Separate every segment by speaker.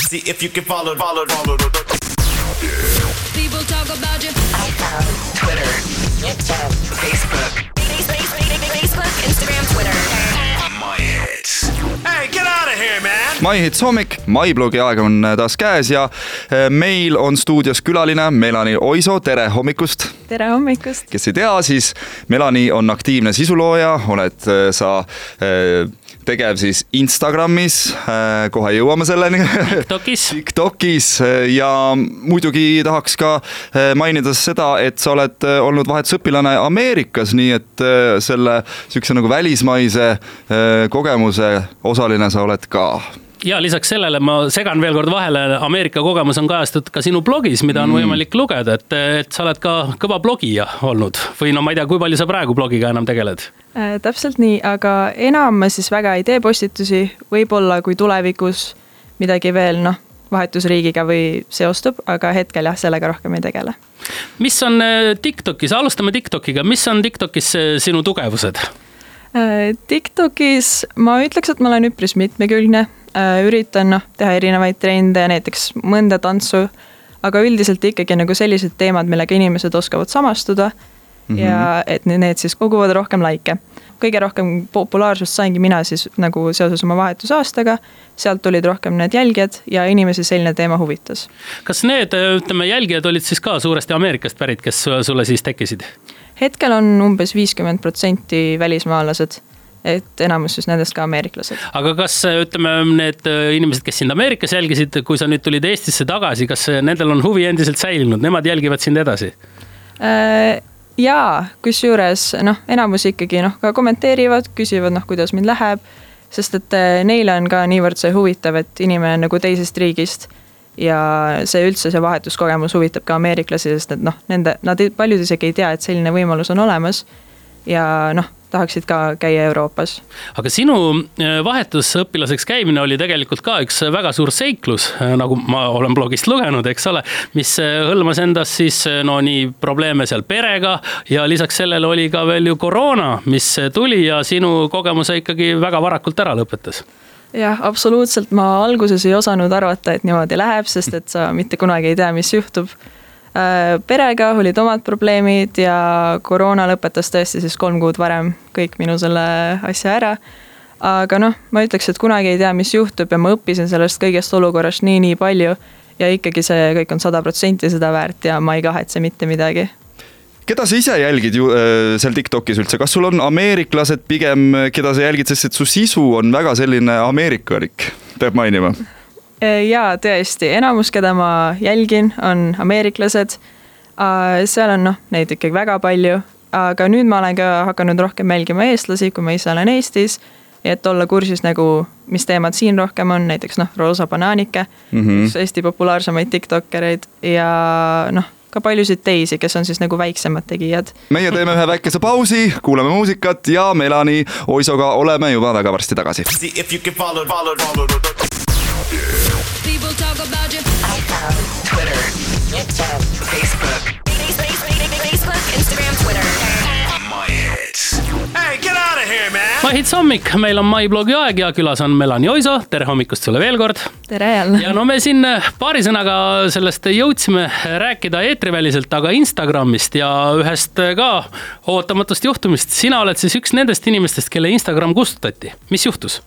Speaker 1: See if you can follow.
Speaker 2: People talk about you.
Speaker 3: iPhone, Twitter, YouTube, Facebook, Instagram, Twitter.
Speaker 1: My hits. Hey, get out of here, man!
Speaker 4: My Hits hommik, MyBlogi aeg on taas käes ja meil on stuudios külaline Melani Oiso, tere hommikust!
Speaker 5: Tere hommikust!
Speaker 4: Kes ei tea, siis Melani on aktiivne sisulooja, oled sa tegev siis Instagramis, kohe jõuame selleni. TikTokis ja muidugi tahaks ka mainida seda, et sa oled olnud vahetusõpilane Ameerikas, nii et selle sükse nagu välismaise kogemuse osaline sa oled ka.
Speaker 6: Ja lisaks sellele ma segan veel kord vahele, Ameerika kogemus on kajastatud ka sinu blogis, mida on võimalik lugeda, et sa oled ka kõva blogija olnud või no ma ei tea, kui palju sa praegu blogiga enam tegeled?
Speaker 5: Täpselt nii, aga enam ma siis väga ei tee postitusi, võib-olla kui tulevikus midagi veel vahetusriigiga või seostub, aga hetkel jah, sellega rohkem ei tegele.
Speaker 6: Mis on TikTokis, alustame TikTokiga, mis on TikTokis sinu tugevused?
Speaker 5: TikTokis ma ütleks, et ma olen üpris mitmekülgne, üritan teha erinevaid trende, näiteks mõnda tantsu, aga üldiselt ikkagi nagu sellised teemad, millega inimesed oskavad samastuda ja et need siis koguvad rohkem laike. Kõige rohkem populaarsust saingi mina siis nagu seoses oma vahetusaastaga, sealt tulid rohkem need jälgijad ja inimesi selline teema huvitas.
Speaker 6: Kas need jälgijad olid siis ka suuresti Ameerikast pärit, kes sulle siis tekkisid?
Speaker 5: Hetkel on umbes 50% välismaalased, et enamus siis nendest ka ameeriklased.
Speaker 6: Aga kas need inimesed, kes sind Ameerikas jälgisid, kui sa nüüd tulid Eestisse tagasi, kas nendel on huvi endiselt säilinud? Nemad jälgivad sind edasi?
Speaker 5: Jaa, kusjuures enamus ikkagi ka kommenteerivad, küsivad kuidas mind läheb, sest et neile on ka niivõrd see huvitav, et inimene nagu teisest riigist ja see üldse see vahetuskogemus huvitab ka ameeriklasi, sest et nad paljud isegi ei tea, et selline võimalus on olemas ja tahaksid ka käia Euroopas. Aga
Speaker 6: sinu vahetusõpilaseks käimine oli tegelikult ka üks väga suur seiklus, nagu ma olen blogist lugenud, eks ole, mis hõlmas endas siis nii probleeme seal perega ja lisaks sellele oli ka veel ju koroona, mis tuli ja sinu kogemuse ikkagi väga varakult ära lõpetas.
Speaker 5: Jah, absoluutselt. Ma alguses ei osanud arvata, et niimoodi läheb, sest et sa mitte kunagi ei tea, mis juhtub. Perega olid omad probleemid ja koroona lõpetas tõesti siis 3 kuud varem kõik minu selle asja ära. Aga ma ütleks, et kunagi ei tea, mis juhtub ja ma õppisin sellest kõigest olukorrast nii palju ja ikkagi see kõik on 100% seda väärt ja ma ei kahetse mitte midagi.
Speaker 4: Keda sa ise jälgid seal TikTokis üldse? Kas sul on ameeriklased pigem, keda sa jälgid, sest et su sisu on väga selline ameerikalik, peab mainima?
Speaker 5: Jaa, tõesti. Enamus, keda ma jälgin, on ameeriklased. Seal on neid ikkagi väga palju, aga nüüd ma olen ka hakanud rohkem jälgima eestlasi, kui ma ise olen Eestis, et olla kursis mis teemad siin rohkem on, näiteks Roosa Banaanike, üks Eesti populaarsemaid TikTokereid ja ka paljusid teisi, kes on siis väiksemad tegijad. Meie
Speaker 4: teeme ühe väikese pausi, kuulame muusikat ja Melani Oisoga oleme juba väga varsti tagasi.
Speaker 1: See if you can follow.
Speaker 2: People talk about you.
Speaker 3: iPhone, Twitter, YouTube, Facebook, Instagram, Twitter.
Speaker 1: My hits. Hey, get out of here, man!
Speaker 6: My Hits hommik, meil on MyBlogi aeg ja külas on Melani Oiso. Tere hommikust sulle veel kord.
Speaker 5: Tere jälle.
Speaker 6: Ja me siin paari sõnaga sellest jõudsime rääkida eetriväliselt, aga Instagramist ja ühest ka ootamatust juhtumist. Sina oled siis üks nendest inimestest, kelle Instagram kustutati. Mis juhtus?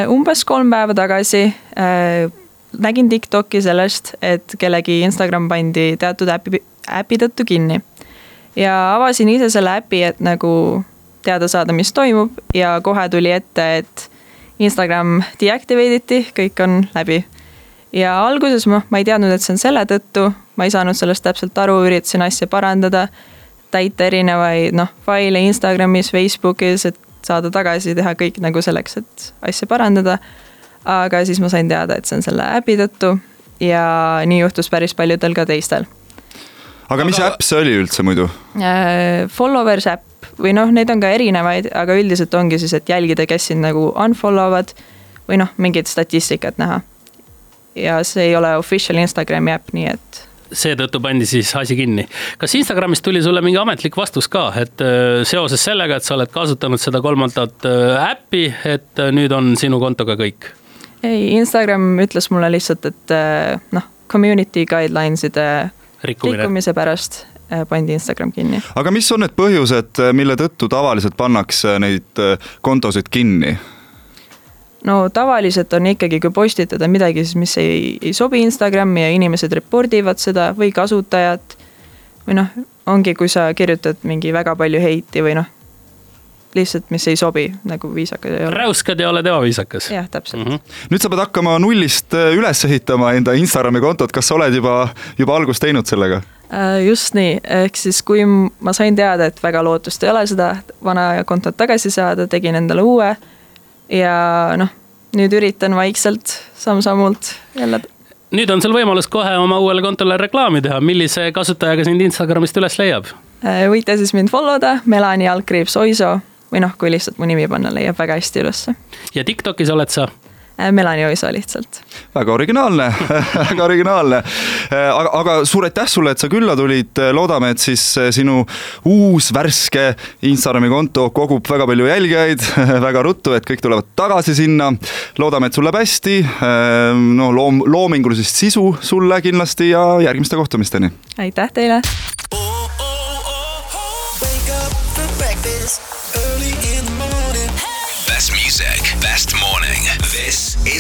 Speaker 5: Umbes 3 päeva tagasi nägin TikToki sellest, et kellegi Instagram pandi teatud äpi tõttu kinni. Ja avasin ise selle äpi, et teada saada, mis toimub ja kohe tuli ette, et Instagram deactivatiti, kõik on läbi. Ja alguses ma ei teadnud, et see on selle tõttu, ma ei saanud sellest täpselt aru, üritasin asja parandada, täita erinevaid faile Instagramis, Facebookis, et saada tagasi, teha kõik selleks, et asja parandada. Aga siis ma sain teada, et see on selle äpi tõttu ja nii juhtus päris paljudel ka teistel.
Speaker 4: Aga mis äpp see oli üldse muidu?
Speaker 5: Followers äpp või neid on ka erinevaid, aga üldiselt ongi siis, et jälgida, kes sind unfollowvad või mingit statistikat näha. Ja see ei ole official Instagrami äpp, nii et
Speaker 6: seetõttu pandi siis asi kinni. Kas Instagramist tuli sulle mingi ametlik vastus ka, et seoses sellega, et sa oled kasutanud seda 3. äppi, et nüüd on sinu kontoga kõik?
Speaker 5: ei, Instagram ütles mulle lihtsalt, et community guidelines'ide rikkumise pärast pandi Instagram kinni.
Speaker 4: Aga mis on need põhjused, mille tõttu tavaliselt pannakse neid kontosid kinni?
Speaker 5: No tavaliselt on ikkagi, kui postitada midagi, mis ei sobi Instagrami ja inimesed repordivad seda või kasutajad või ongi, kui sa kirjutad mingi väga palju heiti või lihtsalt, mis ei sobi, nagu viisakas ei ole.
Speaker 6: Räuskad ja oled ebaviisakas.
Speaker 5: Jah, täpselt.
Speaker 4: Nüüd sa pead hakkama nullist üles ehitama enda Instagrami kontot, kas sa oled juba algust teinud sellega?
Speaker 5: Just nii, ehk siis kui ma sain teada, et väga lootust ei ole seda vana kontot tagasi saada, tegin endale uue ja nüüd üritan vaikselt samm-sammult jälle.
Speaker 6: Nüüd on sul võimalus kohe oma uuele kontole reklaami teha, millise kasutajaga sind Instagramist üles leiab?
Speaker 5: Võite siis mind followda, Melani_Oiso või kui lihtsalt mu nimi panna, leiab väga hästi ülesse.
Speaker 6: Ja TikTokis oled sa?
Speaker 5: Melani_Oiso lihtsalt.
Speaker 4: Väga originaalne, väga originaalne. Aga suur aitäh sulle, et sa külla tulid. Loodame, et siis sinu uus värske Instagrami konto kogub väga palju jälgijaid, väga ruttu, et kõik tulevad tagasi sinna. Loodame, et sul läheb hästi, loomingulisest sisu sulle kindlasti ja järgmiste kohtumisteni.
Speaker 5: Aitäh teile!
Speaker 1: Best music, best morning. This is